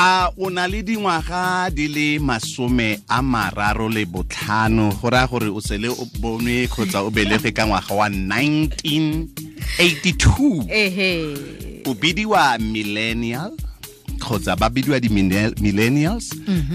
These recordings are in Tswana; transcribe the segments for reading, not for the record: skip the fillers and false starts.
A o na le dingwaga di le 35, go raya gore o sele o bonwe kgotsa o belege ka ngwaga wa 1982. Ehe. O bidiwa millennial kgotsa ba bidiwa di-millennials.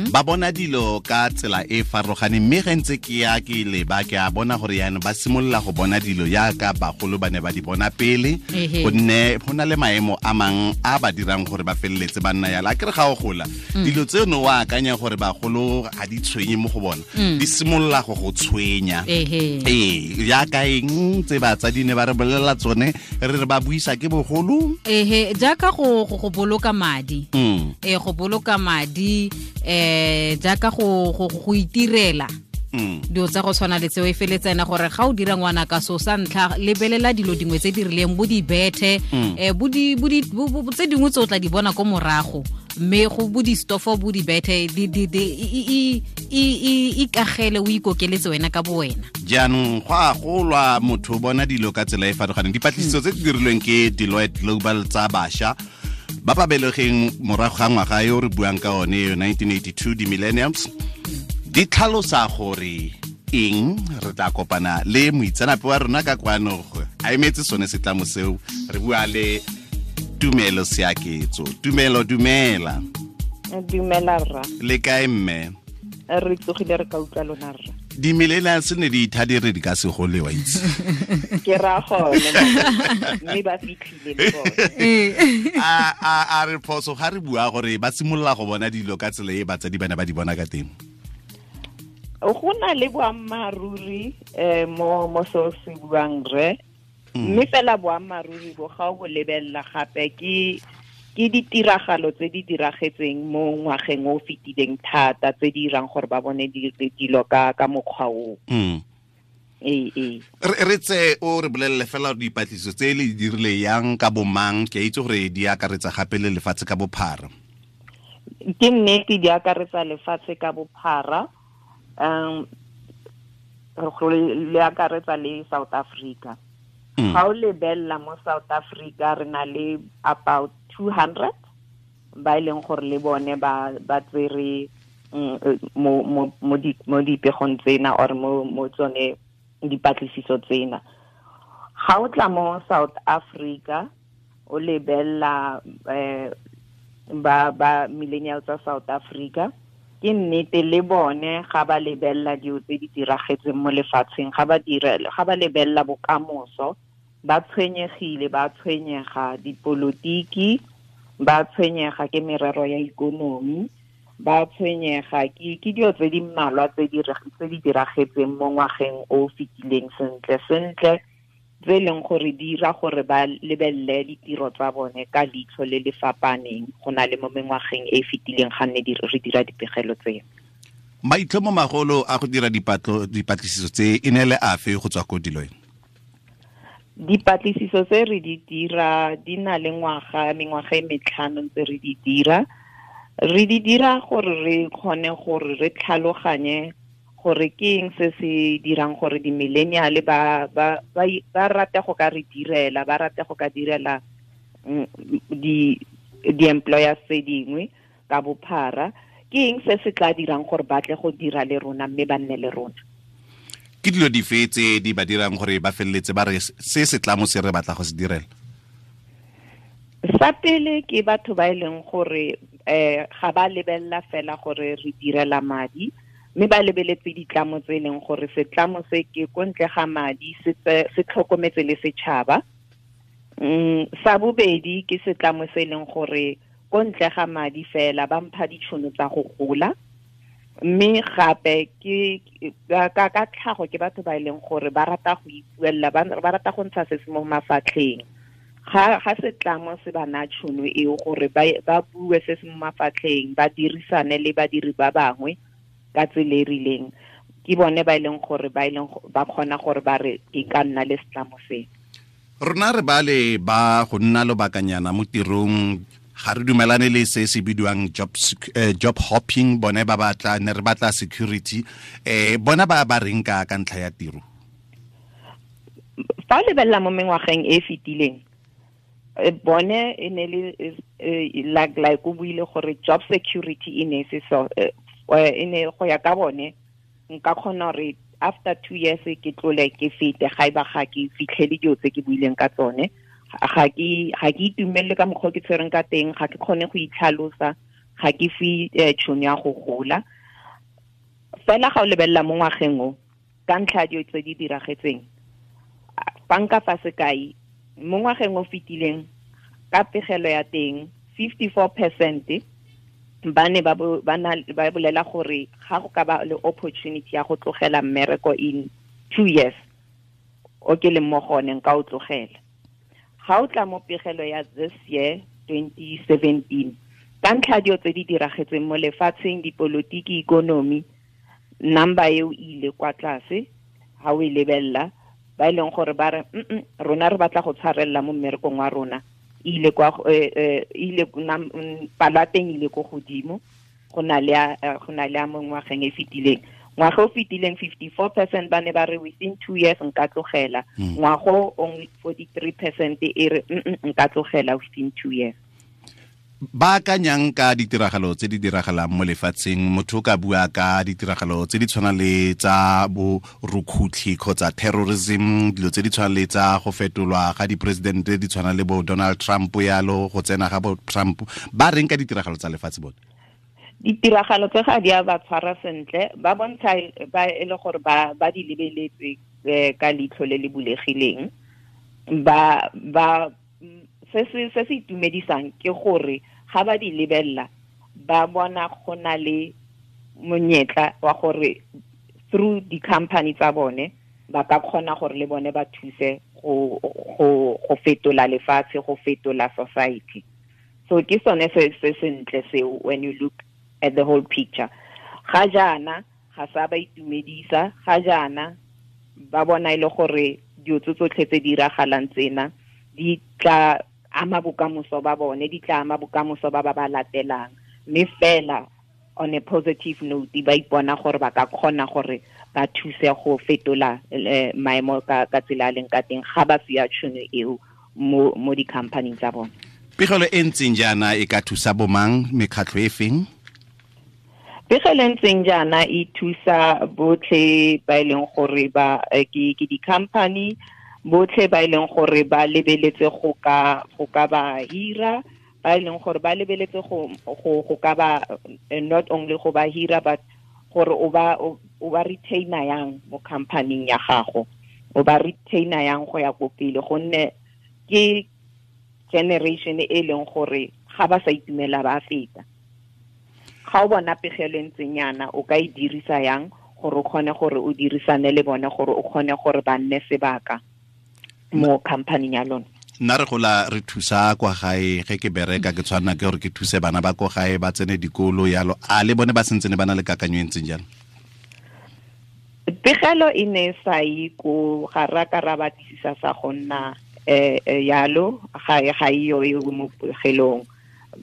Ba bona dilo ka tsela e farologaneng, mme ge ntse ke ya ke leba ke a bona gore yaanong ba simolola go bona dilo yaka bagolo ba ne ba di bona pele, gonne go na le maemo a mang a ba dirang gore ba feleletse ba nna yalo. A kere ga o gola, dilo tseno o akanya gore bagolo ga di tshwenye mo go bona, di simolola go go tshwenya. Ee, yaka eng tse batsadi ne ba re bolelela tsone re re ba buisa ke bogolo. Ehe, jaaka go boloka madi. Go boloka madi, jaaka go itirela dilo tsa go tshwana le tseo, e feletsa ena gore ga o dira ngwana ka so sa ntlha, lebelela dilo dingwe tse di rileng, bo di bethe, bo di tse dingwe tse o tla di bona ko morago, mme go bo di stofo, bo di bethe, di ikagele, o ikokeletse wena ka bo wena. Jaanong go a golwa, motho o bona dilo ka tsela e farologaneng. Dipatlisiso tse di dirilweng ke Deloitte Global tsa bašwa ba ba belegeng morago ga ngwaga yo re buang ka one yo 1982, di-millenniums, di tlhalosa gore eng. Re tla kopana le moitseanape wa rona ka kwano a emetse sone setlamo seo. Re bua le Tumelo Seaketso. Tumelo, dumela. Dumela rra. Le kae mme? Re tsogile, re ka utlwa lona rra. Di-millennials ne di itha di re di ka se gole, wa itse. Ke ra gone, mme ba fitlhile le bone. A re phoso ga re bua gore ba simolola go bona dilo ka tsela e batsadi ba ne ba di bona ka teng? Go na le boammaaruri mo seo se buang re, mme fela boammaaruri bo ga o bo lebelela gape ke ditiragalo tse di diragetseng mo ngwageng o fetileng thata, tse di dirang gore ba bone dilo ka mokgwa o. Ee. Re tse o re bolelele fela dipatlisiso tse le di dirile yang ka bomang, ke a itse gore di akaretsa gape le lefatshe ka bophara. Ke nnete, di akaretsa lefatshe ka bophara, le akaretsa le South Africa. Ga o lebelela mo South Africa, re na le about 200 ba e leng gore le bone ba tsere mo dipegong tsena or mo tsone dipatlisiso tsena. Ga o tla mo South Africa o lebelela ba millennials tsa South Africa, ke nnete le bone ga ba lebelela dilo tse di diragetseng mo lefatsheng, ga ba lebelela bokamoso, ba tshwenyegile, ba tshwenyega dipolotiki, ba tshwenyega ke merero ya ikonomi, ba tshwenyega ke dilo tse di mmalwa tse di diragetseng mo ngwageng o fetileng sentle sentle, tse leng gore di dira gore ba lebelele ditiro tsa bone ka leitlho le le fapaneng go na le mo mengwageng e fetileng ga nne re dira dipegelo tseo. Maitlhomo magolo a go dira dipatlisiso tse e ne le afe go tswa ko Deloitte? Dipatlisiso tse re di dira di na le mengwaga e metlhano tse re di dira. Re di dira gore re kgone gore re tlhaloganye gore ke eng se se dirang gore di-millennial ba rate go ka re direla, ba rate go ka direla di-employers tse dingwe ka bophara. Ke eng se se tla dirang gore ba tle go dira le rona mme ba nne le rona? Ke dilo dife tse di ba dirang gore ba feleletse ba re se setlamo se re batla go se direla? Sa pele ke batho ba e leng gore ga ba lebelela fela gore re direla madi, mme ba lebeletse ditlamo tse e leng gore setlamo se ke ko ntle ga madi, se tlhokometse le setšhaba. Sa bobedi ke setlamo se e leng gore ko ntle ga madi fela ba mpha ditšhono tsa go gola, mme gape ke ka tlhago ke batho ba e leng gore ba rata go ipuella, ba rata go ntsha se se mo mafatlheng. Ga setlamo se ba na tšhono eo gore ba bue se se mo mafatlheng, ba dirisane le badiri ba bangwe ka tsela e rileng, ke bone ba e leng gore ba kgona gore ba re ke ka nna le setlamo se. Rona re bale ba go nna lobakanyana mo tirong, ga re dumelane le se se bidiwang job hopping, bone ba batla ne re batla security. Bona ba ba reng ka ntlha ya tiro? Fa o lebelela mo mengwageng e fetileng, Bone e ne le like o buile gore job security e ne se so e ne go ya ka bone nka kgona gore after 2 years ke tlole ke fete ga ba ga ke fitlhele dilo tse ke buileng ka tsone, ga ke itumelele ka mokgwa ke tshwereng ka teng, ga ke kgone go itlhalosa, ga ke fe tšhono ya go gola. Fela ga o lebelela mo ngwageng o ka ntlha dilo tse di diragetseng, fa nka fa sekai mo ngwageng o fetileng ka pegelo ya teng 54% ba ne ba bolela gore ga go ka ba le opportunity ya go tlogela mmereko in 2 years o ke leng mo gone nka o tlogela. Ga o tla mo pegelo ya this year 2017, ka ntlha dilo tse di diragetseng mo lefatsheng, dipolotiki, ikonomi, number eo ile kwa tlase ha o e lebella, ba e leng gore ba re rona re batla go tshwarella mo mmerekong wa rona, ile kwa ile palo ya teng ile ko godimo go na le a mo ngwageng e fetileng. Ngwaga o fetileng 54% ba ne ba re within 2 years nka tlogela, ngwago only 43% e re nka tlogela within 2 years. Ba akanyang ka ditiragalo tse di diragalang mo lefatsheng, motho o ka bua ka ditiragalo tse di tshwanang le tsa bo rukhutlhi kgotsa terrorism, dilo tse di tshwanang le tsa go fetolwa ga dipresidente di tshwana le bo Donald Trump yalo, go tsena ga bo Trump, ba reng ka ditiragalo tsa lefatshe bone? Ditiragalo tse ga di a ba tshwara sentle, ba bontsha ba e le gore ba di lebeletse ka leitlho le le bulegileng. Ba se se itumedisang ke gore ga ba di lebella ba bona go na le monyetla wa gore through di-company tsa bone ba ka kgona gore le bone ba thuse go fetola lefatshe, go fetola society. So ke sone se sentle seo when you look at the whole picture. Ga jaana ga sa ba itumedisa, ga jaana ba bona e le gore dilo tsotlhe tse di diragalang tsena di tla ama bokamoso ba bone, di tla ama bokamoso ba ba latelang, mme fela on a positive note ba ipona gore ba ka kgona gore ba thuse go fetola maemo ka tsela a leng ka teng ga ba fiwa tšhono eo mo di-company tsa bone. Pegelo e ntseng jaana e ka thusa bomang, mekgatlho e feng? Pegelo e ntseng jaana e thusa botlhe ba e leng gore ba ke di-company, botlhe ba e leng gore ba lebeletse go ka ba hira, ba e leng gore ba lebeletse go ka ba not only go ba hira but gore o ba retainer yang mo company ya gago, o ba retainer yang go ya ko pele, gonne ke generation e leng gore ga ba sa itumela ba feta. Ga o bona pegelo e ntseng yana o ka e dirisa yang gore o kgone gore o dirisane le bone, gore o kgone gore ba nne sebaka mo company ya lona. Nna re gola re thusa kwa gae, ge ke bereka ke tshwanna ke gore ke thuse bana ba ko gae ba tsene dikolo yalo, a le bone ba sentse ne ba na le kakanyo e ntseng jalo? Pegelo e ne sa ye ko ga ra ka ra batlisisa sa go nna yalo, ga e yo e mo pegelong,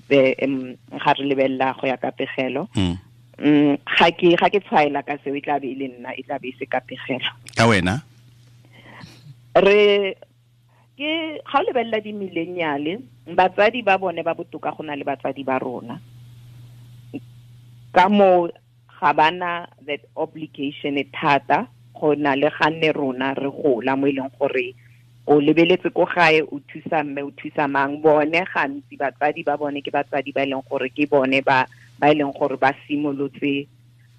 ga re lebelela go ya ka pegelo. Ga ke tshwaela ka seo, e tla be e le nna, e tla be e se ka pegelo. Ka wena? Re ke ga o lebelela di-millennial, batsadi ba bone ba botoka go na le batsadi ba rona, ka moo ga bana that obligation e thata go na le ga nne rona re gola mo e leng gore o lebeletse ko gae o thusa mme o thusa mang. Bone gantsi batsadi ba bone ke batsadi ba e leng gore ke bone ba e leng gore ba simolotse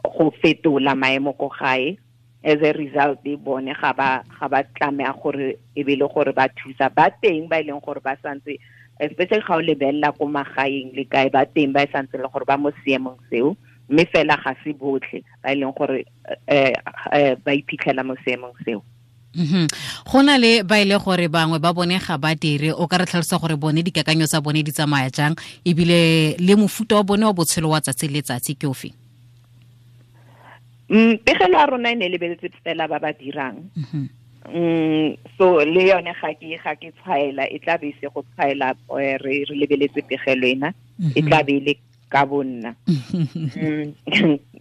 go fetola maemo ko gae. As a result, bone ga ba tlameha gore e be le gore ba thusa ba teng ba e leng gore ba santse, especially ga o lebelela ko magaeng le kae, ba teng ba e santse le gore ba mo seemong seo, mme fela ga se botlhe ba e leng gore ba iphitlhela mo seemong seo. Go na le ba ile gore bangwe ba bone ga ba dire, o ka re tlhalosa gore bone dikakanyo tsa bone di tsamaya jang, ebile le mofuta wa bone wa botshelo wa tsatsi le tsatsi ke ofe? Pegelo ya rona e ne lebeletse fela ba ba dirang. So le yone ga ke tshwaela, e tla be se go tshwaela re lebeletse pegelo ena, e tla be le ka bonna.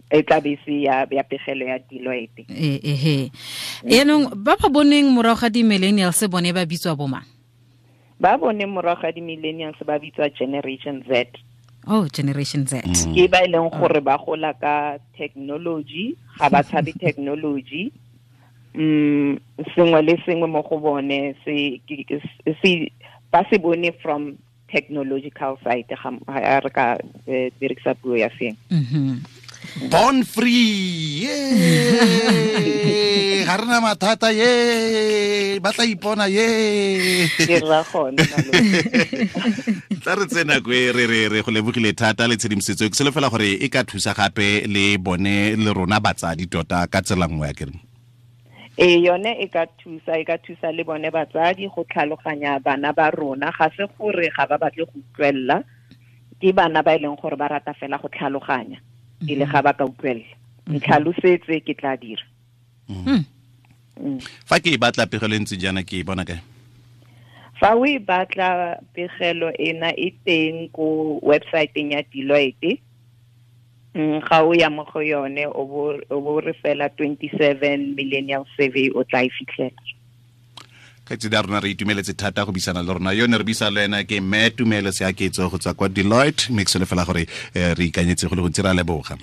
E tla be se ya pegelo ya Deloitte. Yaanong ba ba boneng morago ga di-millennials bone ba bitswa bomang? Ba bone morago ga di-millennials ba bitswa Generation Z. Oh, Generation Z. Ke ba e leng gore ba gola ka technology, ga ba tshabe technology. Sengwe le sengwe mo go bone se ba se bone from technological side, ga re ka dirisa puo ya seng. Born free, ye ga rena mathata, ye ba tla ipona, ye ke ra gone. Tla re tsena kwe re go lebogile thata le tshedimosetso ke solofela gore e ka thusa gape le bone le rona batsadi tota ka tsela nngwe ya kereng. E yone e ka thusa le bone batsadi go tlhaloganya bana ba rona, ga se gore ga ba batle go utlwella, ke bana ba e leng gore ba rata fela go tlhaloganya ile ga ba ka utlwella. Ntlhalosetse ke tla dira. Fa ke e batla pegelo e ntse jaana ke e bona kae? Fa o e batla pegelo ena e teng ko website-eng ya Deloitte. Ga o ya mo go yone o bo re fela 27 Millennial Survey o tla e fitlhela. Kgaitsedi ya rona re itumeletse thata go buisana le rona. Yone re buisa le ena ke Mme Tumelo Seaketso go tswa kwa Deloitte, mme ke solofela gore re ikanyetse go le gontsi, ra leboga.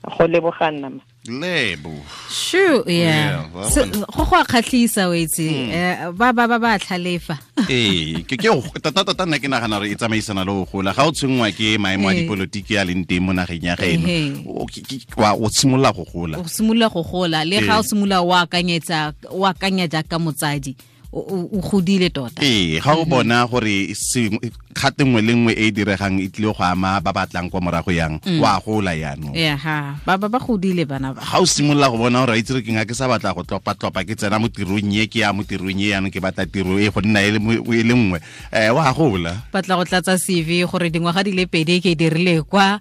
Go leboga nna. Lebo. Sure, yeah. Go go a kgatlhisa o itse, ba ba ba ba tlhalefa. Ee, ke tota tota nna ke nagana gore e tsamaisana le go gola. Ga o tshwenngwa ke maemo a dipolotiki a leng teng mo nageng ya geno, o simolola go gola. O simolola go gola, le ga o simolola o akanyetsa, o akanya jaaka motsadi, o godile tota. Ee, ga o bona gore kgate nngwe le nngwe e e diregang e tlile go ama ba batlang kwa morago yang, wa gola yaanong. Yeah, ba ba godile bana ba. Ga o simolola go bona gore a itse re ke nga ke sa batla go tlopa-tlopa, ke tsena mo tirong e, ke ya mo tirong e, yaanong ke batla tiro e go nna e le nngwe, wa gola. Batla go tlatsa CV gore dingwaga di le pedi ke dirile kwa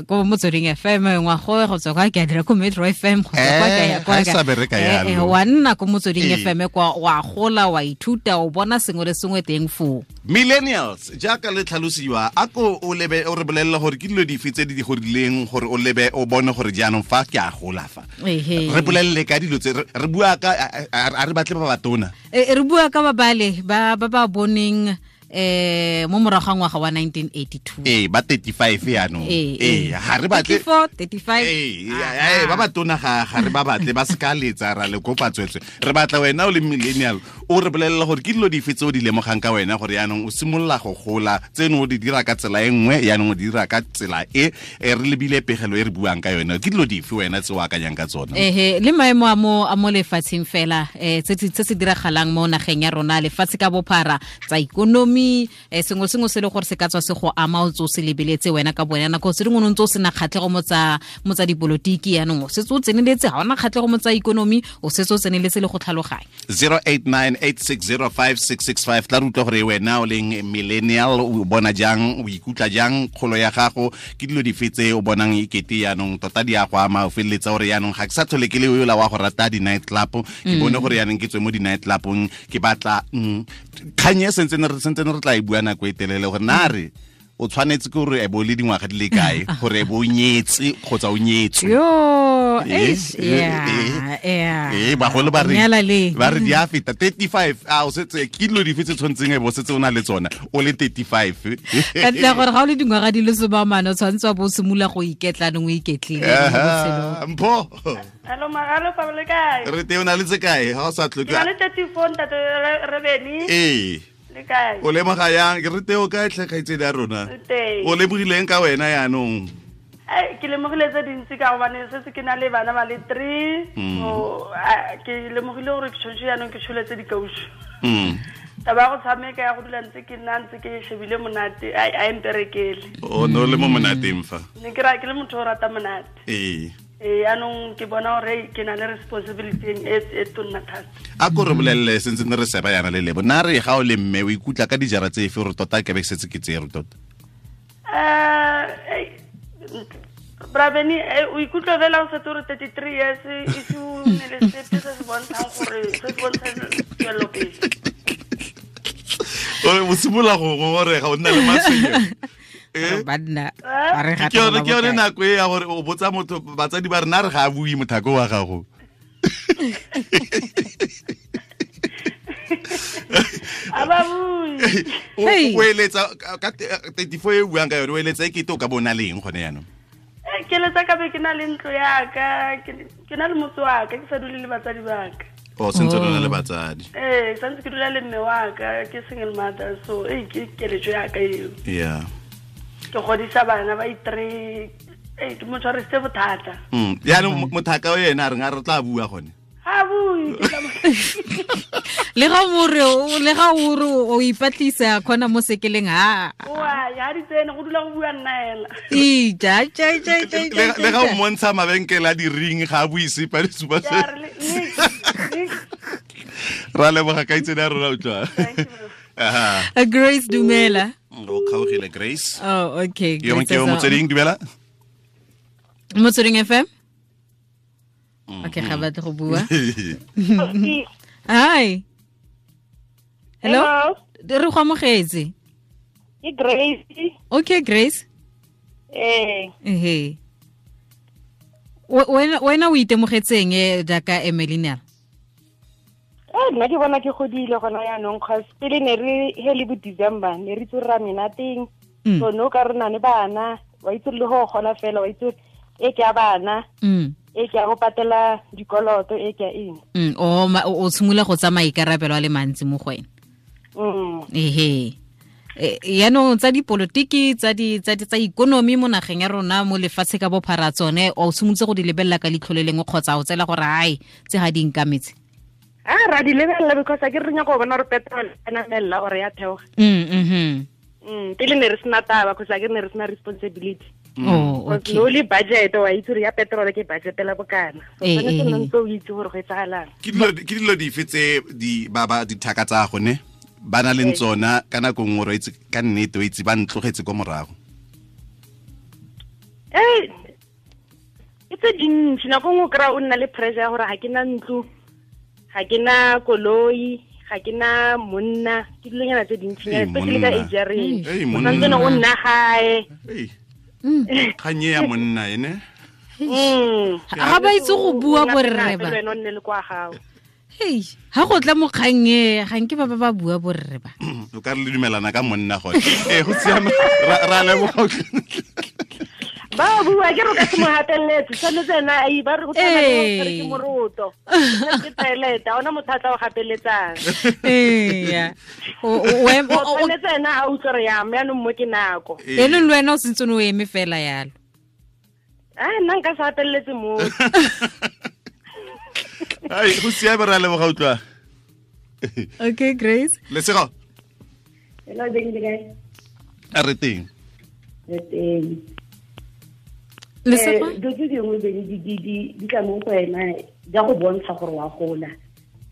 ko Motsweding FM, ngwaga go tswa kwa ke a dira ko Metro FM, go tswa kwa ke ya kwa. Ga e sa bereka yalo. Wa nna ko Motsweding FM kwa, wa gola, wa ithuta, o bona sengwe le sengwe teng foo. Millennials jaaka le tlhalosiwa, a ko o lebe o re bolelle gore ke dilo dife tse di di gorileng gore o lebe o bone gore jaanong fa ke a gola fa. Re bolelle ka dilo tse re bua ka, a re batle ba batona. Re bua ka ba bale ba ba boneng mo morago ga ngwaga wa 1982. Ee, ba 35 yaanong. Ee, ga re batle 34, 35. Ee, ba batona ga re ba batle, ba seka letsa ra le kopa tswetswe. Re batla wena o le millennial o re bolelle gore ke dilo dife tse o di lemogang ka wena gore yaanong o simolola go gola, tseno o di dira ka tsela e nngwe, yaanong o di dira ka tsela e re lebile pegelo e re buang ka yone. Ke dilo dife wena tse o akanyang ka tsona? Le maemo a mo lefatsheng fela, tse se diragalang mo nageng ya rona, lefatshe ka bophara, tsa ikonomi, sengwe sengwe se le gore se ka tswa se go ama, o tse o se lebeletse wena ka bone. Nako tse dingwe o ntse o sena kgatlhego mo tsa dipolotiki, yaanong o setse o tseneletse, ga ona kgatlhego mo tsa ikonomi, o setse o tseneletse le go tlhaloganya. 0898605665 tla re utlwa gore wena o leng millennial o bona jang, o ikutlwa jang kgolo ya gago, ke dilo dife tse o bonang ekete yaanong tota di a go ama, o feleletsa gore yaanong ga ke sa tlhole ke le yola wa go rata di-night club, ke bone gore yaanong ke tswe mo di-night clubong, ke batla kgang e sentsene re tla e bua nako e telele gore na re o tshwanetse ke gore e bo le dingwaga di le kae gore e bo o nyetse kgotsa o nyetswe. Bagolo ba re di a feta 35, a o setse ke dilo dife tse tshwanetseng e bo setse o na le tsona o le 35. Ka ntlha gore ga o le dingwaga di le 40 o tshwanetse wa bo o simolola go iketla nong o iketlile. Mpho. Hello, Magalo, pa le kae? Re teng, o na le tse kae? Ga o sa tlhoke. Ke na le 34 ntate Rebeni. Ee. Le kae? O lemoga yang? Ke re teo kae tlhe kgaitsedi ya rona? O lemogileng ka wena yaanong? Ke lemogile tse dintsi ka gobane setse ke na le bana ba le 3. So ke lemogile gore ke tshwanetse yaanong ke tsholetse dikausu. Taba ya go tshameka ya go dula ntse ke nna ntse ke shebile monate, a emperekele. O ne o le mo monateng fa? Ne ke ke le motho o rata monate. Ee. Yaanong ke bona gore ke na le responsibility e tonna thata. A ko re bolelele sentse ne re seba yana le lebo. Na re ga o le mme o ikutlwa ka dijara tse efe gore tota ke be ke setse ke tsere tota? Brabeni, o ikutlwa fela o setse o re 33 years e se o nne le sepe se se bontshang gore se se bontshang tswelelopele. O simolola go ngongorega, o nna le matshwenyego. Banna ke yone nako e ya gore o botsa motho, batsadi ba rena re ga a bue mothako wa gago. A ba bue. O eletsa ka 34 e buang ka yone, o eletsa e kete o ka bona leng gone yaanong? Ke eletsa ka be ke na le ntlo ya ka, ke na le motse wa ka, ke sa dule le batsadi ba ka. O sentse o na le batsadi? Ee, santse ke dula le mme wa ka, ke single mother, so ke keletso ya ka eo. Yeah. Ke godisa bana ba i3, ke mo tshwarisitse bothata. Yaanong mothaka o ena a reng a re tla bua gone? Ha bue. Le ga more le ga o re o ipatlisa khona mo sekeleng ha. Wa ya di tsene go dula go bua nna ela. Ija ja ja ja. Le ga o montsha mabenkele a di ring ga a bue sepe le supa se. Ra leboga ka itsene ya rona utlwa. Aha. Grace dumela. O kgaogile Grace. Oh, okay. Yo ke Motsweding dumela. Motsweding FM? Okay, ga batle go bua. Hi. Hello. Re go amogetse. Ke Grace. Okay, Grace. Eh. Ehe. Wena o itemogetseng jaaka a millennial? Nna ke bona ke godile gona yaanong, cause pele ne re he le bo December ne re itse ra menateng. So no ka re na le bana, wa itse le go gola fela, wa itse e ke a bana. E ke a go patela dikoloto, e ke a eng. O tshimolola go tsamaya ikarabelo a le mantsi mo go wena. Ehe. Yaanong tsa dipolotiki, tsa ikonomi mo nageng ya rona, mo lefatshe ka bophara tsone, o tshimolotse go di lebelela ka leitlho le lengwe kgotsa o tsela gore ai tse ga di nkametse? A ra di lebelela because a ke re nyaka go bona gore petrol e namella or ya theoga. Pele ne re sena taba because a ke ne re sena responsibility. Oh, okay. No le budget wa itse re ya petrol ke budget la bokana. So tshwanetse nna ntse o itse gore go etsagalang. Ke dilo dife tse di ba ba dithaka tsa gone ba na le tsona ka nako nngwe re itse ka nnete o itse ba ntlogetse kwa morago? E tse dintsi, nako nngwe o kry-a o nna le pressure ya gore ga ke na ntlo, ga ke na koloi, ga ke na monna, ke dilonyana tse dintsinyana, especially ka age ya rena. O santse o nna gae. Kganye ya monna ene. Ga ba itse go bua borre ba. Wena o nne le kwa gago. Hei, ha go tla mo kgannye, ga nke ba ba bua borre ba. O ka re le dumelana ka monna gone. Go siame ra leboga. Ba bua ke re ka se mo hateletse, tshwanetse ena a ba re go tshwana le gore ke moroto. Ke toilet, ha ona motho a tla o gapeletsang. Eya. O tshwanetse ena a utlwe re ya mme anong mo ke nako. Eno le wena o sentse o eme fela yalo. Nna nka se hateletse mo. Ai, go siame ra leboga utlwa. Okay, Grace. Lesego. Hello, Benny, le kae? A re teng. Re teng. Lesego? Dilo tse dingwe Benny di tla mo go wena di a go bontsha gore wa gola.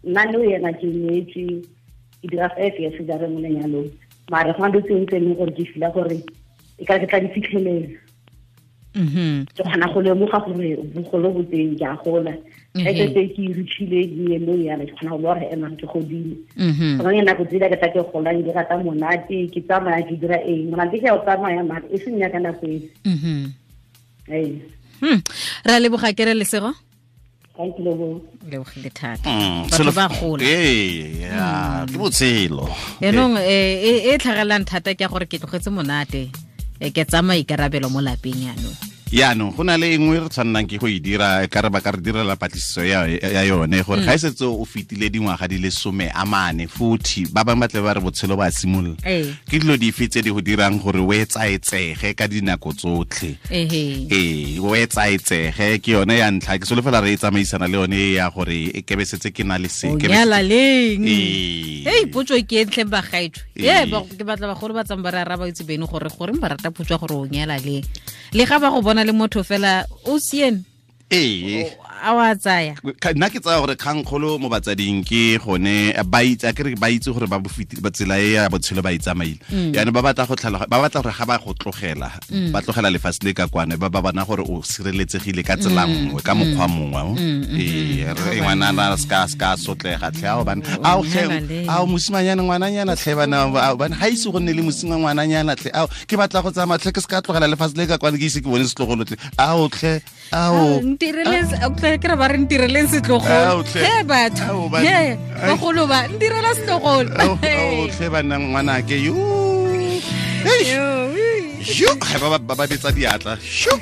Nna le wena ke nyetswe, ke dira 5 years jare mo lenyalong. Mare go na dilo tse dingwe tse e leng gore ke feel-a gore e ka ke tla di fitlhelela. Ke kgona go lemoga gore bogolo bo teng ke a gola. Ga ke setse ke reachile diemong yana, ke kgona go bona gore emang ke godile. Go na nako tse ke tla ke golang, ke rata monate, ke tsamaya ke dira eng. Monate ke a o tsamaya mare e seng ya ka nako e. Ra leboga ke re Lesego. Thank you. Lebogile thata. Batho ba gola. Ee, ke botshelo. Yaanong e tlhagelang thata ke gore ke tlogetse monate. Ke tsamaya ikarabelo mo lapeng yaanong. Yaanong go na le engwe re tshwannang ke go e dira, ka re ba ka re direla patlisiso ya yone gore ga e setse o fetile dingwaga di le 40, 40, ba bangwe ba tle ba re botshelo ba simolola. Ke dilo dife tse di go dirang gore o etsaetsege ka dinako tsotlhe? Ee, o etsaetsege ke yone ya ntlha, ke solofela re e tsamaisana le yone ya gore e kebe setse ke na le se. O nyala leng? Hei, potso ke e ntle bagaetsho. Ke batla bagolo ba tsang ba re araba itse bene gore goreng ba rata potso ya gore o nyala leng. Le ga ba go bona le motho fela o sien. Ee. A wa tsaya. Nna ke tsaya gore kgangkgolo mo batsading ke gone ba itse, a ke re ba itse gore ba bofiti ba tsela e ya botshelo ba itsamaile. Yaanong ba batla go tlhaloga, ba batla gore ga ba go tlogela, ba tlogela lefatshe le ka kwane, ba ba bona gore o sireletsegile ka tsela nngwe, ka mokgwa mongwe. Ee, re ngwana na ska sotlega tlhe ao bana. Ao tlhe, ao mosimanyana ngwananyana tlhe bana, bana ga ise go nne le mosimanyana ngwananyana tlhe. Ao ke batla go tsamaya tlhe ke ska tlogela lefatshe le ka kwane ke ise ke bone setlogolo tlhe. Ao tlhe, ao. Ntireletse Tle ke re ba re ntireleng setlogolo. He batho. He bagolo ba ntirela setlogolo. Tlhe banna ngwanake yo. Yo, ba ba betsa diatla. Shu.